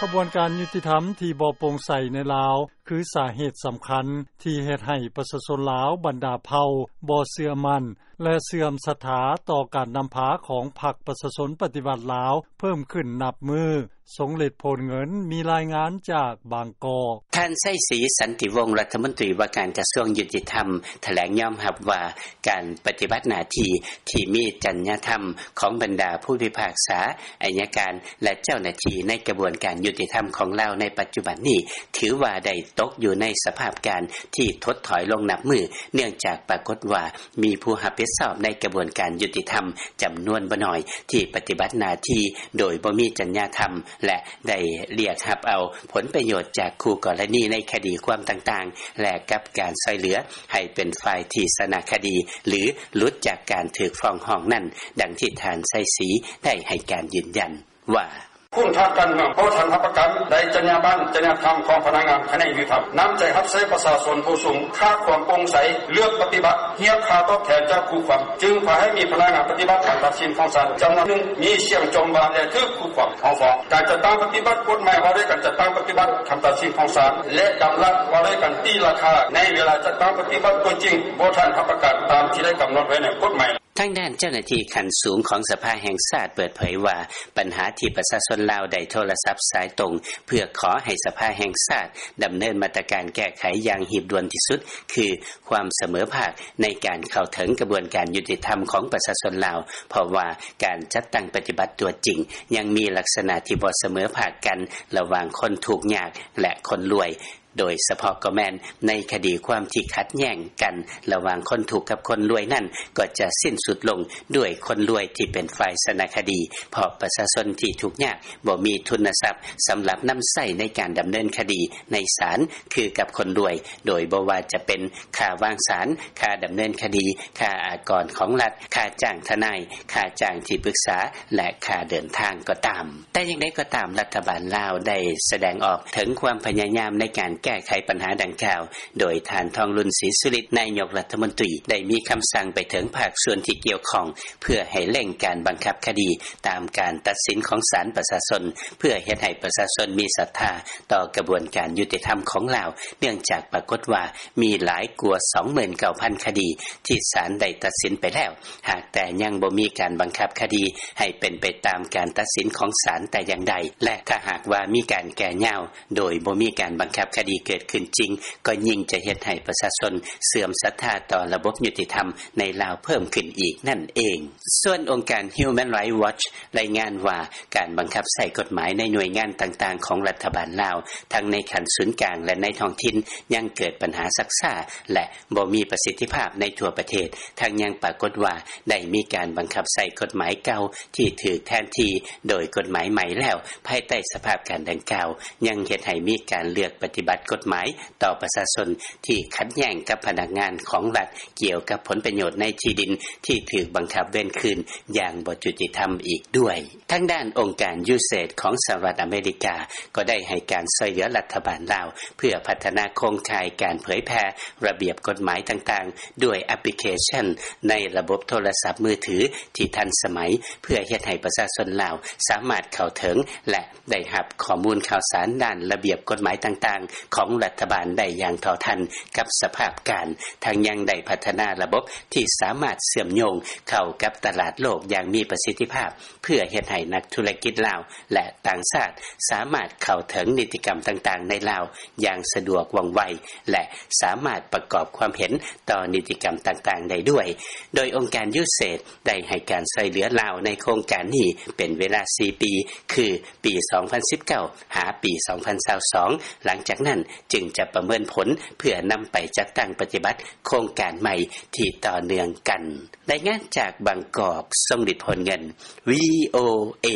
ຂະບວນການຍຸຕິທຳທີ່ບໍ່ໂປ່ງໃສໃນລາວ ຄືສາເຫດສຳຄັນທີ່ເຮັດໃຫ້ປະຊາຊົນລາວບັນດາເຜົ່າບໍ່ເຊື່ອໝັ້ນ ແລະ ເສື່ອມສັດທາຕໍ່ການນຳພາຂອງພັກປະຊາຊົນປະຕິວັດລາວເພີ່ມຂຶ້ນນັບມື້. ຊົງເລັດ ໂພນເງິນ ມີລາຍງານຈາກບາງກອກ. ທ່ານ ໄຊສີ ສັນຕິວົງ ລັດຖະມົນຕີວ່າການກະຊວງຍຸຕິທຳ ຖະແຫຼງຍອມຮັບວ່າ ການປະຕິບັດໜ້າທີ່ທີ່ມີຈັນຍາທຳຂອງບັນດາຜູ້ພິພາກສາ, ໄອຍະການ ແລະ ເຈົ້າໜ້າທີ່ໃນກະບວນການຍຸຕິທຳຂອງລາວໃນປັດຈຸບັນນີ້ ຖືວ່າໄດ້ຕົກຢູ່ໃນສະພາບການທີ່ຖົດຖອຍລົງນັບມື້ ເນື່ອງຈາກປາກົດວ່າມີຜູ້ຮັບຜິດຊອບໃນກະບວນການຍຸຕິທຳຈຳນວນບໍ່ໜ້ອຍ ທີ່ປະຕິບັດໜ້າທີ່ໂດຍບໍ່ມີຈັນຍາທຳ ແລະ ໄດ້ລຽກຮັບເອົາຜົນປະໂຫຍດຈາກຄູ່ກໍລະນີໃນຄະດີຄວາມຕ່າງໆ ແລະ ກັບການຊ່ອຍເຫຼືອໃຫ້ເປັນຝ່າຍທີ່ຊະນະຄະດີ ຫຼື ຫຼຸດຈາກການຖືກຟ້ອງຮ້ອງນັ້ນ, ດັ່ງທີ່ທ່ານ ໄຊສີ ໄດ້ໃຫ້ການຢືນຢັນວ່າ: ຄຸນທາງການເມືອງບໍ່ທັນຮັບປະກັນໄດ້ຈັນຍາບັນ, ຈັນຍາທຳຂອງພະນັກງານຂະແໜງຍຸຕິທຳ, ນ້ຳໃຈຮັບໃຊ້ປະຊາຊົນຜູ້ສູງ, ຂາດຄວາມໂປ່ງໃສ, ເລືອກປະຕິບັດຮຽກຄ່າຕອບແທນຈາກຄູ່ຄວາມ, ຈຶ່ງພາໃຫ້ມີພະນັກງານປະຕິບັດຄຳຕັດສິນຂອງສານຈຳນວນໜຶ່ງ ມີສຽງຈົ່ມວ່າ ແລະ ຖືກຄູ່ຄວາມເອົາຟ້ອງ. ການຈັດຕັ້ງປະຕິບັດກົດໝາຍວ່າດ້ວຍການຈັດຕັ້ງປະຕິບັດຄຳຕັດສິນຂອງສານ ແລະ ດຳລັດວ່າດ້ວຍການຕີລາຄາໃນເວລາຈັດຕັ້ງປະຕິບັດຕົວຈິງ ບໍ່ທັນຮັບປະກັນຕາມທີ່ໄດ້ກຳນົດໄວ້ໃນກົດໝາຍ. ທາງດ້ານເຈົ້າໜ້າທີ່ຂັ້ນສູງຂອງສະພາແຫ່ງຊາດເປີດເຜີຍວ່າ ບັນຫາທີ່ປະຊາຊົນລາວໄດ້ໂທລະສັບສາຍຕົງ ເພື່ອຂໍໃຫ້ສະພາແຫ່ງຊາດດຳເນີນມາດຕະການແກ້ໄຂຢ່າງຮີບດ່ວນທີ່ສຸດ ຄືຄວາມສະເໝີພາກໃນການເຂົ້າເຖິງກະບວນການຍຸຕິທຳຂອງປະຊາຊົນລາວ, ເພາະວ່າການຈັດຕັ້ງປະຕິບັດຕົວຈິງ ຍັງມີລັກສະນະທີ່ບໍ່ສະເໝີພາກກັນລະຫວ່າງຄົນທຸກຍາກ ແລະ ຄົນລວຍ. ໂດຍສະເພາະກໍແມ່ນໃນຄະດີຄວາມທີ່ຂັດແຍ້ງກັນລະຫວ່າງຄົນທຸກກັບຄົນລວຍນັ້ນ ກໍຈະສິ້ນສຸດລົງດ້ວຍຄົນລວຍທີ່ເປັນຝ່າຍຊະນະຄະດີ, ເພາະປະຊາຊົນທີ່ທຸກຍາກບໍ່ມີທຶນນະຊັບສຳລັບນຳໃຊ້ໃນການດຳເນີນຄະດີໃນສານຄືກັບຄົນລວຍ, ໂດຍບໍ່ວ່າຈະເປັນຄ່າວາງສານ, ຄ່າດຳເນີນຄະດີ, ຄ່າອາກອນຂອງລັດ, ຄ່າຈ້າງທະນາຍ, ຄ່າຈ້າງທີ່ປຶກສາ ແລະ ຄ່າເດີນທາງກໍຕາມ. ແຕ່ຢ່າງໃດກໍຕາມ, ລັດຖະບານລາວໄດ້ສະແດງອອກເຖິງຄວາມພະຍາຍາມໃນການແກ້ໄຂບັນຫາດັ່ງກ່າວ, ໂດຍທ່ານ ທອງລຸນ ສີສຸລິດ ນາຍົກລັດຖະມົນຕີ ໄດ້ມີຄຳສັ່ງໄປເຖິງພາກສ່ວນທີ່ກ່ຽວຂ້ອງ ເພື່ອໃຫ້ເລັ່ງການບັງຄັບຄະດີຕາມການຕັດສິນຂອງສານປະຊາຊົນ, ເພື່ອເຮັດໃຫ້ປະຊາຊົນມີສັດທາຕໍ່ກະບວນການຍຸຕິທຳຂອງລາວ, ເນື່ອງຈາກປາກົດວ່າມີຫຼາຍກວ່າ ສອງໝື່ນເກົ້າພັນຄະດີ ທີ່ສານໄດ້ຕັດສິນໄປແລ້ວ, ຫາກແຕ່ຍັງບໍ່ມີການບັງຄັບຄະດີໃຫ້ເປັນໄປຕາມການຕັດສິນຂອງສານແຕ່ຢ່າງໃດ ແລະ ຖ້າຫາກວ່າມີການແກ່ຍາວໂດຍບໍ່ມີການບັງຄັບຄະດີເກີດຂຶ້ນຈິງ, ກໍຍິ່ງຈະເຮັດໃຫ້ປະຊາຊົນເສື່ອມສັດທາຕໍ່ລະບົບຍຸຕິທຳໃນລາວເພີ່ມຂຶ້ນອີກນັ້ນເອງ. ສ່ວນອົງການ Human Rights Watch ລາຍງານວ່າ ການບັງຄັບໃຊ້ກົດໝາຍໃນໜ່ວຍງານຕ່າງໆຂອງລັດຖະບານລາວ ທັງໃນຂັ້ນສູນກາງ ແລະ ໃນທ້ອງຖິ່ນ ຍັງເກີດບັນຫາຊັກຊ້າ ແລະ ບໍ່ມີປະສິດທິພາບໃນທົ່ວປະເທດ, ທັງຍັງປາກົດວ່າໄດ້ມີການບັງຄັບໃຊ້ກົດໝາຍເກົ່າທີ່ຖືກແທນທີ່ໂດຍກົດໝາຍໃໝ່ແລ້ວ. ພາຍໃຕ້ສະພາບການດັ່ງກ່າວ ຍັງເຮັດໃຫ້ມີການເລືອກປະຕິບັດກົດໝາຍຕໍ່ປະຊາຊົນທີ່ຂັດແຍ້ງກັບພະນັກງານຂອງລັດ ກ່ຽວກັບຜົນປະໂຫຍດໃນທີ່ດິນທີ່ຖືກບັງຄັບເວນຄືນຢ່າງບໍ່ຍຸຕິທຳອີກດ້ວຍ. ທາງດ້ານອົງການ USAID ຂອງສະຫະລັດອາເມລິກາ ກໍໄດ້ໃຫ້ການຊ່ວຍເຫຼືອລັດຖະບານລາວ ເພື່ອພັດທະນາໂຄງຂ່າຍການເຜີຍແຜ່ລະບຽບກົດໝາຍຕ່າງໆ ດ້ວຍແອັບພລິເຄຊັນໃນລະບົບໂທລະສັບມືຖືທີ່ທັນສະໄໝ ເພື່ອເຮັດໃຫ້ປະຊາຊົນລາວສາມາດເຂົ້າເຖິງ ແລະ ໄດ້ຮັບຂໍ້ມູນຂ່າວສານດ້ານລະບຽບກົດໝາຍຕ່າງໆຂອງລັດຖະບານໄດ້ຢ່າງເທົ່າທັນກັບສະພາບການ, ທັງຍັງໄດ້ພັດທະນາລະບົບທີ່ສາມາດເຊື່ອມໂຍງເຂົ້າກັບຕະຫຼາດໂລກຢ່າງມີປະສິດທິພາບ ເພື່ອເຮັດໃຫ້ນັກທຸລະກິດລາວ ແລະ ຕ່າງຊາດສາມາດເຂົ້າເຖິງນິຕິກຳຕ່າງໆໃນລາວຢ່າງສະດວກວ່ອງໄວ ແລະ ສາມາດປະກອບຄວາມເຫັນຕໍ່ນິຕິກຳຕ່າງໆໄດ້ດ້ວຍ. ໂດຍອົງການ USAID ໄດ້ໃຫ້ການຊ່ວຍເຫຼືອລາວໃນໂຄງການນີ້ເປັນເວລາສີ່ປີ ຄື ປີສອງພັນສິບເກົ້າ ຫາປີສອງພັນຊາວສອງ ຫຼັງຈາກນັ້ນຈຶ່ງຈະປະເມີນຜົນ ເພື່ອນຳໄປຈັດຕັ້ງປະຕິບັດໂຄງການໃໝ່ທີ່ຕໍ່ເນື່ອງກັນ. ລາຍງານຈາກບາງກອກ, ຊົງລິດ ໂພນເງິນ, VOA.